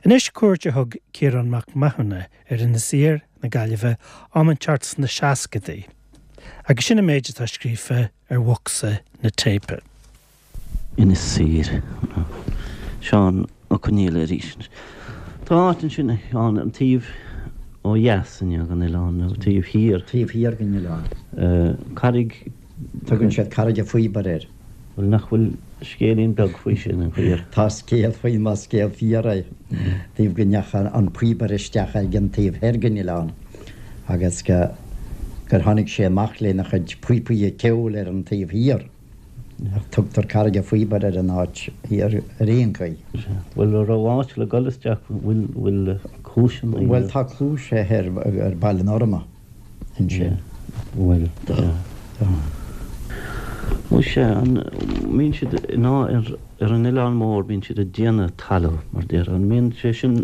Anois cuairt a thug Ciarán Mac Mathúna ar Inis Oírr na Gaillimhe am inteacht sna seascadaí agus sin an méid atá scríofa ar bhocsa na téipe. Inis Oírr. Seán Ó Conghaile arís. Tá áit ansin, a Sheáin, an taobh ó dheas inniu den oileán, nó taobh thiar. Taobh thiar den oileán. Carraig. Tugann siad Carraig a' Phíobaire air. Bhuel, nach bhfuil scéilín beag faoi sin, an fíor? Tá scéal faoi, más scéal fíor é, taobh go ndeacha an píobaire isteach ag an taobh thoir den oileán agus go gur tháinig sé amach lena chuid píopaí ceoil ar an taobh thiar. Ach tugtar Carraig a' Phíobaire ar an áit thiar ar aon chaoi. Bhuel, an raibh áit le dul isteach, bhfuil, bhfuil cluaiseanna? Bhuel, tá cluais thoir ar Baile an Fhorma ansin. Bhuel, tá. Tá. Muise, an mbíonn siad in ar, ar an Oileán Mór, bíonn siad ag déanamh talamh, mar déarfá, an mbíonn sé sin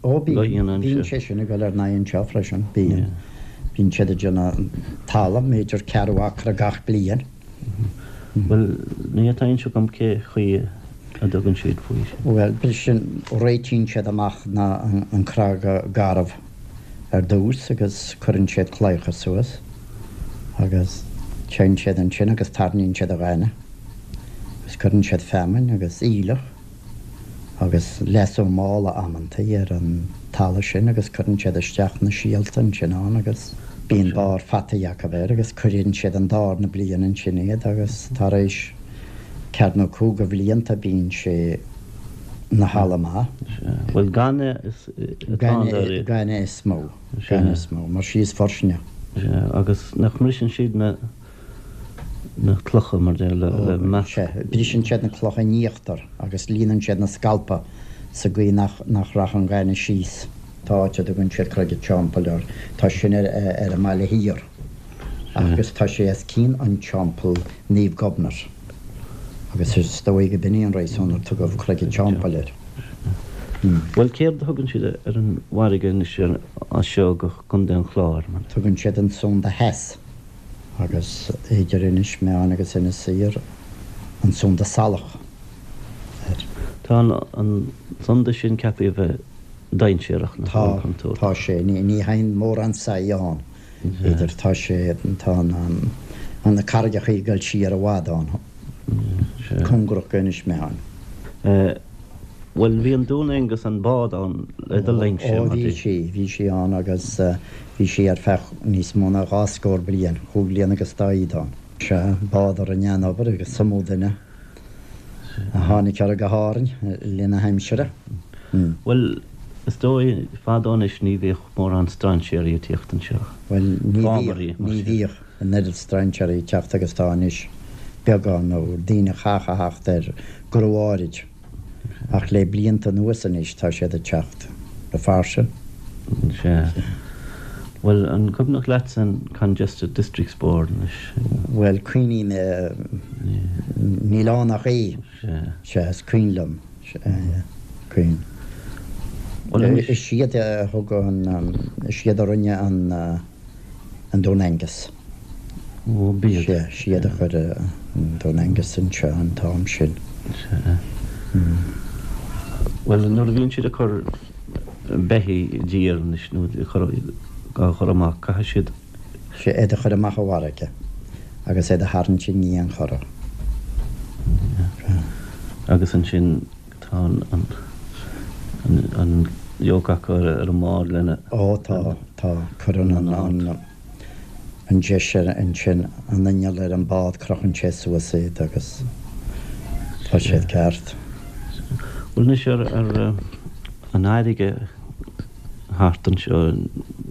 Ó, bíonn, bíonn sé sin ag dul ar n-aghaidh anseo freisin, bíonn. Bíonn siad ag déanamh talamh, b'fhéidir ceathrú acra gach bliain. Bhuel, ní tá a fhios agam cé chaoi a dtugann siad faoi sin. Bhuel, briseann, réitíonn siad amach na, an cnag garbh ar dtús agus cuireann siad claíocha suas agus téann siad ansin agus tarraingíonn siad an ghaineamh agus cuireann siad feamainn agus aoileach. agus leasú mála amantaí ar an talamh sin agus cuireann siad isteach na síolta ansin ann agus bíonn barr fataí acu air agus cuireann siad an dárna bliain ansin iad agus tar éis ceathair nó cúig bhlianta bíonn sé 'na thalamh maith. Bhuel gaineamh is atá ann dáiríre. Gaineamh is mó, gaineamh is mó, mar sí is fuirsinne. Sea, agus nach mbriseann siad na. na clocha mar deir le measc. Sea, briseann siad na clocha in íochtar agus líonann siad na scalpa sa gcaoi nach nach rachadh an ghaineamh síos. Tá áit a dtugann siad Creag a' Teampaill air, tá sin ar ar an mbaile thiar agus tá sé os cionn an teampall Naomh Gobnait agus is dóigh go b'in í an réasún ar tugadh Creag a' Teampaill air. Bhuel céard a thugann siad ar an bhfarraige anois as seo go Contae an Chláir? Tugann siad an Sunda Theas. agus idir Inis Meáin agus Inis Oírr, an Sunda Salach air. Tá an sunda sin ceaptha a bheith dainséarach, nach bhfuil, Tá, contúirteach. tá sé. Ní théann mórán saigh ann. Idir, tá sé, tá an, na carraigeacha ag dul siar i bhfad ann, cóngarach go Inis Meáin. Bhuel, bhí an Dún Aengus, an bád ann le do linnse, Ó, bhí sí, bhí sí ann agus bhí sí ar feadh níos mó ná dhá scór bliain, chúig bhliana agus dá fhichid ann. Sea, bád a rinne an-obair agus is iomaí duine a tháinig uirthi go hÁrainn le linn na haimsire. Bhuel, is dóigh, fadó anois ní bhíodh mórán strainséirí ag tíocht anseo. Bhuel, ní bhíodh, ní bhíodh an oiread strainséirí ag teacht agus atá anois, beagán, nó daoine a chaithfeadh a theacht ar gnó áirid. Ach le blianta anuas anois tá siad ag teacht go fairsing. Sea. Bhuel, an cuimhneach leatsa an Congested Districts Board anois? Bhuel, cuimhním, níl ann ach é. Sea. Sea, is cuimhin liom. Sea, cuimhin. Bhuel anois. Is iad a thug an, is iad a rinne an, an Dún Aengus. Ó, b'iad. Sea, siad a chuir an Dún Aengus anseo an t-am sin. Sea. Bhuel, nuair a bhíonn siad ag cur beithígh i dtír anois, nó ag cur, á chur amach, caithfidh siad. Sea, iad a chur amach i bhfarraige agus iad a tharraingt i ndiaidh an chora. Sea. Agus ansin tá an, an, an, an yoke acu ar an mbád lena. Ó, tá, tá. Cuireann an, an. an deis ar ansin an inneall ar an bád crochann sé suas iad agus tá siad ceart. Bhuel anois ar ar an fharraige thart anseo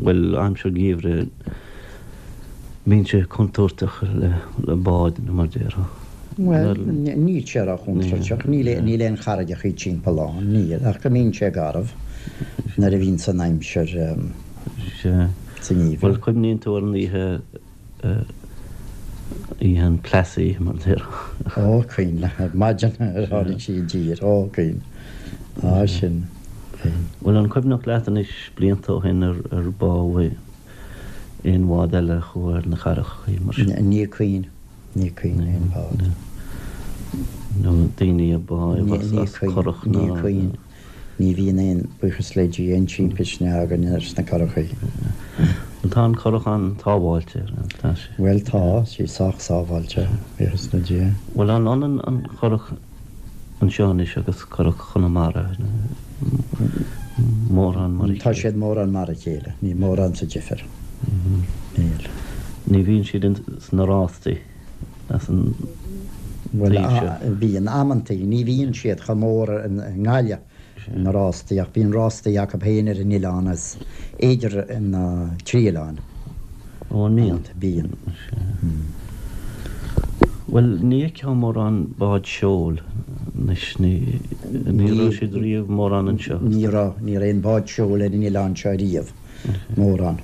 bhuel aimsir geimhridh bíonn sé contúirteach le le báid nó mar déarfá. Bhuel níl sé ró-chontúirteach, níl níl aon charraigeachaí timpeall ann, níl, ach go mbíonn sé garbh nuair a bhíonns an aimsir. Sea. Sa ngeimhreadh. Bhuel, cuimhníonn tú ar an oíche, oíche an Plassey, mar a déarfá. Ó, cuimhin, ar maidin ar tháinig sí i dtír. Ó, cuimhin. Á, sin, cuimhin. Bhuel, an cuimhneach leat anois, blianta ó shin, ar, ar bádh aon bhád eile a chuaigh ar na carraigeachaí mar sin? Ní cuimhin, ní cuimhin aon bhád. Nó daoine a bádh as Ní curach cuimhin, ná. ní cuimhin. Ní bhíonn aon, buíochas le Dia, aon timpiste againn ar sna curachaí. Bhuel tá an curach an-sábháilte, tá sé? Bhuel tá, sí sách sábháilte, buíochas le Dia. Bhuel an ionann an churach anseo anois agus curach Chonamara, mórán mar a chéile? Tá siad mórán mar a chéile, níl mórán sa difear, níl. Ní bhíonn siad sna rástaí as an taobh seo? Bhuel, bíonn amantaí, ní bhíonn siad chomh mór i nGaillimh. na rástaí, ach bíonn rástaí acu féin ar an oileán is idir na trí oileáin. Ó, an mbíonn? Bíonn. Bhuel, ní fheicfeá mórán bád seoil anois, ní raibh siad riamh mórán anseo. Ní raibh, ní raibh aon bád seoil ar an oileán seo riamh, mórán.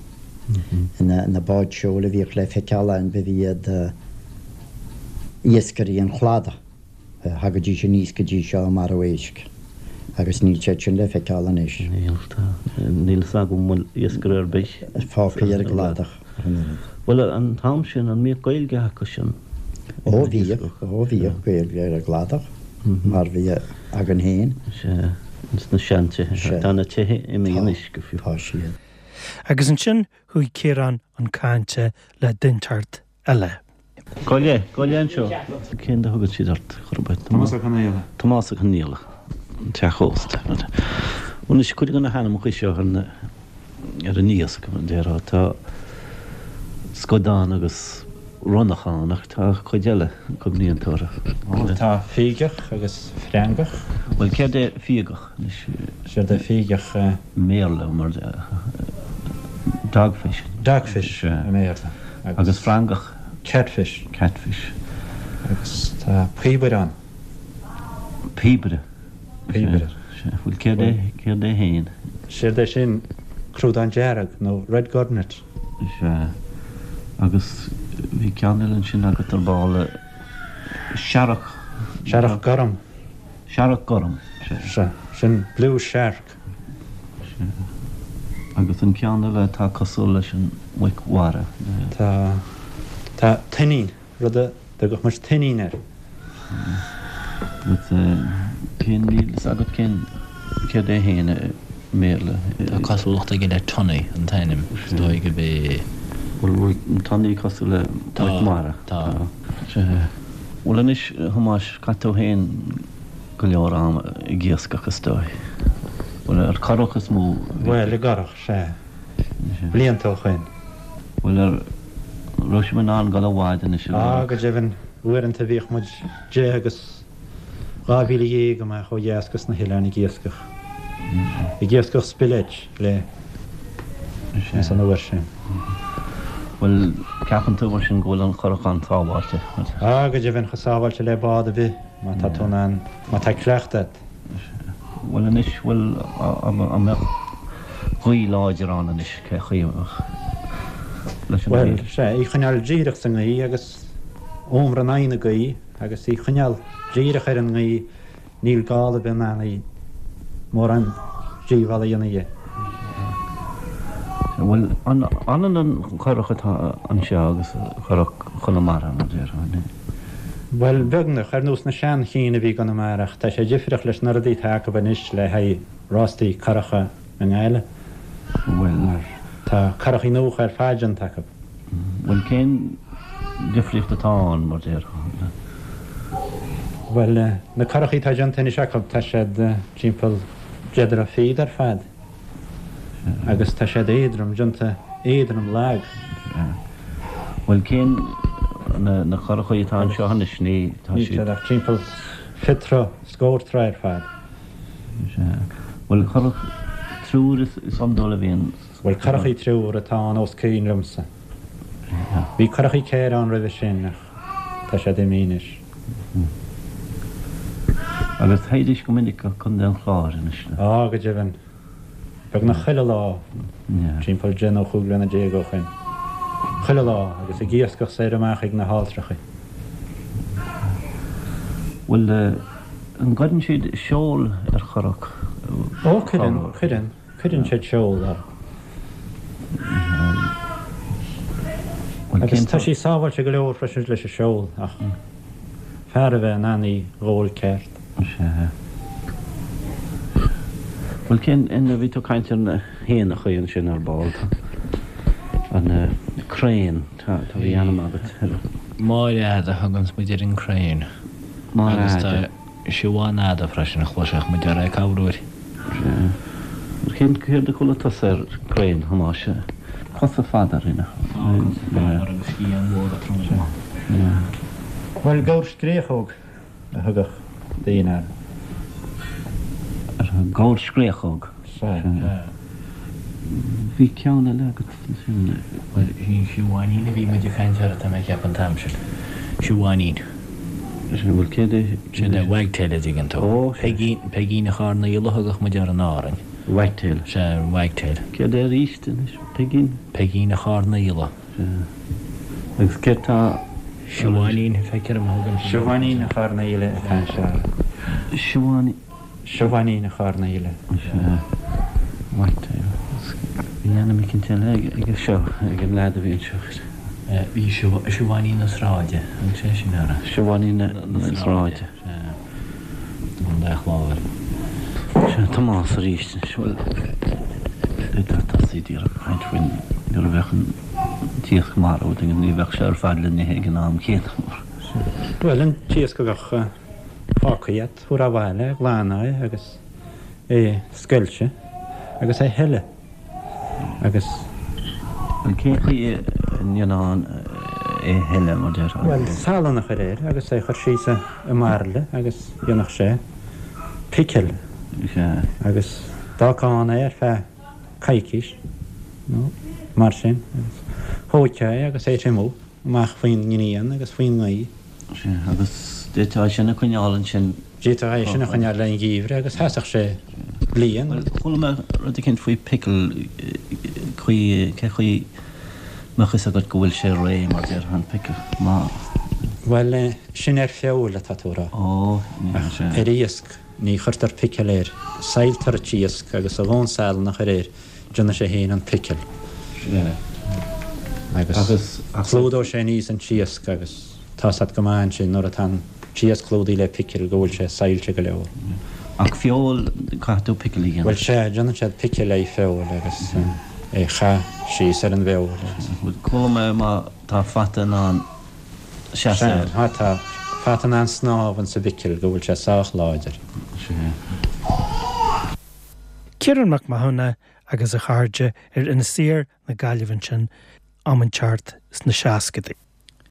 Na báid seoil a bhíodh le feiceáil ann, ba iad iascairí an chladaigh. Thagaidís aníos go dtí seo ag marú éisc agus níl siad sin le feiceáil anois. Níl, tá. Níl fhios agam an bhfuil iascaire ar bith fágtha ar an gcladach ach an oiread. Bhuel, an t-am sin, an mbíodh Gaeilge acu sin? Ó, bhíodh, ó bhíodh Gaeilge ar an gcladach mar bhí againn féin. Sea, ins na seantithe. Sea. Tá na tithe imithe anois go fiú. Tá siad. Agus ansin chuaigh Ciarán chun cainte le duinteacht eile. Gabh i leith, gabh i leith anseo. Cén a thugann siad ort, chor ar bith? Tomás Ó Conaola. Tomás Ó Conaola, an teach ósta. Anois, cuid de na hainmneacha seo ar na, ar an iasc, mar a déarfá, tá scadán agus ronnach ann ach tá cuid eile, an cuimhníonn tú orthu? Bhuel, tá fígeach agus freangach. Bhuel, céard é fígeach anois? Séard é fígeach? I mBéarla, mar dogfish. Dogfish i mBéarla. Agus freangach? Catfish. Catfish. Agus tá píobaire ann. Píobaire. Píobaire. Sea. Bhuel, céard é, céard é fhéin? Séard é sin crúdán dearg nó red gurnet. Sea. Agus bhí ceann eile ansin agat ar ball, searrach. Searrach gorm. Searrach gorm. Sea. Sin blue shark. Sea. Agus an ceann eile atá cosúil leis an muic mhara. Tá. Tá tuinnín, rud a dtugadh muid tuinnín air. Agus cén, níl fhios agat cén, céard é fhéin i mBéarla? Tá cosúlacht aige le tunny, an t-ainm. Is dóigh gurb é. Bhuel, bhfuil tunny cosúil le muic mhara? Tá. Sea. Bhuel anois, a Thomáis, chaith tú fhéin go leor ama ag iascach, is dóigh. Bhuel, ar curach is mó a bhí. Bhuel, i gcurach, sea. Blianta ó shoin. Bhuel, an raibh sibh in ann dul i bhfad anois i gcurach? Á, go deimhin, uaireanta bhíodh muid 10 agus 12 mhíle amach ó dheas go sna hoileáin ag iascach. Ag iascach spillet le ins an uair sin. Bhuel, ceapann tú mar sin go bhfuil an churach an-sábháilte? Á, go deimhin, chomh sábháilte le bád ar bith. Má tá tú in ann, má tá cleachtadh agat. Bhuel anois, bhuel, an mbeadh gaoth láidir ann anois, cé chaoi a mbeadh leis an Bhuel, sea, í choinneáil díreach sa ngaoth agus umar in aghaidh na gaoithe agus í choinneáil díreach ar an ngaoth, níl gála ar bith in ann í mórán díobhála a dhéanamh di. Bhuel, an ionann an churach atá anseo agus curach Chonamara, mar a déarfá? Bhuel, beagnach, ar nós na sean-chinn a bhí i gConamara, ach tá sé difriúil leis na rudaí atá acu anois le haghaidh rástaí curacha i nGaillimh. Bhuel. Mar tá curachaí nuacha ar fad déanta acu. Bhuel, cén difríocht atá ann, mar déarfá? Bhuel, na curachaí atá déanta anois acu, tá siad timpeall deich dtroigh fichead ar fad. Agus tá siad éadrom, déanta éadrom lag. Bhuel, cén, na curachaí atá anseo anois, ní, tá siad. Níl siad ach timpeall 20 troigh, scór troigh ar fad. Sea. Bhuel, curach triúr is iondúil a bhíonn. Bhuel, curachaí triúr atá ann os cionn liomsa. Bhí curachaí ceithre ann roimhe sin ach tá siad imithe anois. Agus théidís go minic go Contae an Chláir anois? Á, go deimhin. Beagnach chuile lá, timpeall deich nó chúig bhliana déag ó shoin. Chuile lá, agus ag iascach soir amach ag na hAlltrachaí. Bhuel, an gcuireann siad seol ar churach? Ó, cuireann, cuireann, cuireann siad seol orthu. Agus tá sí sábháilte go leor freisin leis an seol, ach. Fear a bheith in ann í ghabháil ceart. Sea. Bhuel, cén, a bhí tú ag caint ar na héanachaí ansin ar ball, tá an crane, tá, tá, bhí ainm agat ar. Máire Fhada a thuganns muid ar an crane. Máire Fhada. Agus tá Siobhán Fhada freisin, chloisfeadh muid uirthi ag corruair. Sea. Cén, céard a chuala tusa ar crane, Thomáis? Cosa fada uirthi, nach? Tá, cosa fada agus sciatháin mhóra troma. Sea. Bhuel, gabhar scréachóg. a thugadh daoine air. Ar an gabhar scréachóg. Sea. Bhí ceann eile agat ansin. Bhuel, sin Siobháinín a bhí muid ag caint air, tá mé ag ceapadh an t-am sin. Siobháinín. Sea, bhuel, céard é? Sin é wagtail, a dtuigeann tú. Ó, sea. Peigín, Peigín an Choirnéil a thugadh muid air in Árainn. Wagtail. Sea, wagtail. Céard é arís anois? Peigín? Peigín an Choirnéil. Sea. Agus céard tá. Siobháinín, feictear dom a thugann siad. Siobháinín an Choirnéil atá anseo. Siobháinín. Siobháinín an Choirnéil. Sea. Wagtail. Bhí ainm eicínt eile aige seo, ag an leaid a bhí anseo. Bhí Siobháinín na Sráide, thug sé sin uirthi. Siobháinín na Sráide. Sea. Contae an Chláir. Sea, Tomás arís anois. Bhuel, d'fhéadfá tosaí díreach ag caint faoin, nuair a bheadh an t-iasc marbh, tuigim, ní bheadh sé ar fad le n-ithe ag an am céanna mar. Bhuel, an t-iasc a bheadh fágtha agat, thabharfá abhaile, ghlanfá é agus é a scoilteadh agus é a shileadh. Agus. Bhuel, cén chaoi a ndéanfá é a shileadh, mar déarfá? Bhuel, salann a chur air agus é a chur síos i mbairille agus dhéanfadh sé picil. Sea. Agus d'fhágfá ann é ar feadh coicís nó mar sin agus thóigfeá é agus é a thriomú amach faoin ngrian agus faoin ngaoth. Sea, agus d'fhéadfá é sin a choinneáil ansin. D'fhéadfá é sin a choinneáil le an gheimhreadh agus sheasfadh sé bliain. Bhuel, chuala mé rud eicínt faoi pickle, chaoi, cé chaoi mbeadh fhios agat go bhfuil sé réidh, mar déarfá, an pickle, má. Bhuel, sin ar feoil atá tú a rá. Ó, ní Ach ar iasc, ní chuirtear picil air. Sailltear an t-iasc agus a dhóthain salann a chur air, déanfaidh sé féin an picil. Sea. Agus clúdóidh sé aníos an t-iasc agus tá's a't go maith ansin nuair atá an t-iasc clúdaithe le picil go bhfuil sé saillte go leor. Ach feoil, caithfidh tú picil a dhéanamh. Bhuel sea, déanann siad picil le feoil agus é chaith síos ar an bhfeoil agus. Bhuel, chuala mé má tá fata in ann seasamh air. Sea, má tá fata in ann snámh insa bpicil go bhfuil sé sách láidir. Sea. Ciarán Mac Mathúna agus a chairde ar Inis Oírr na Gaillimhe ansin am inteacht sna seascadaí.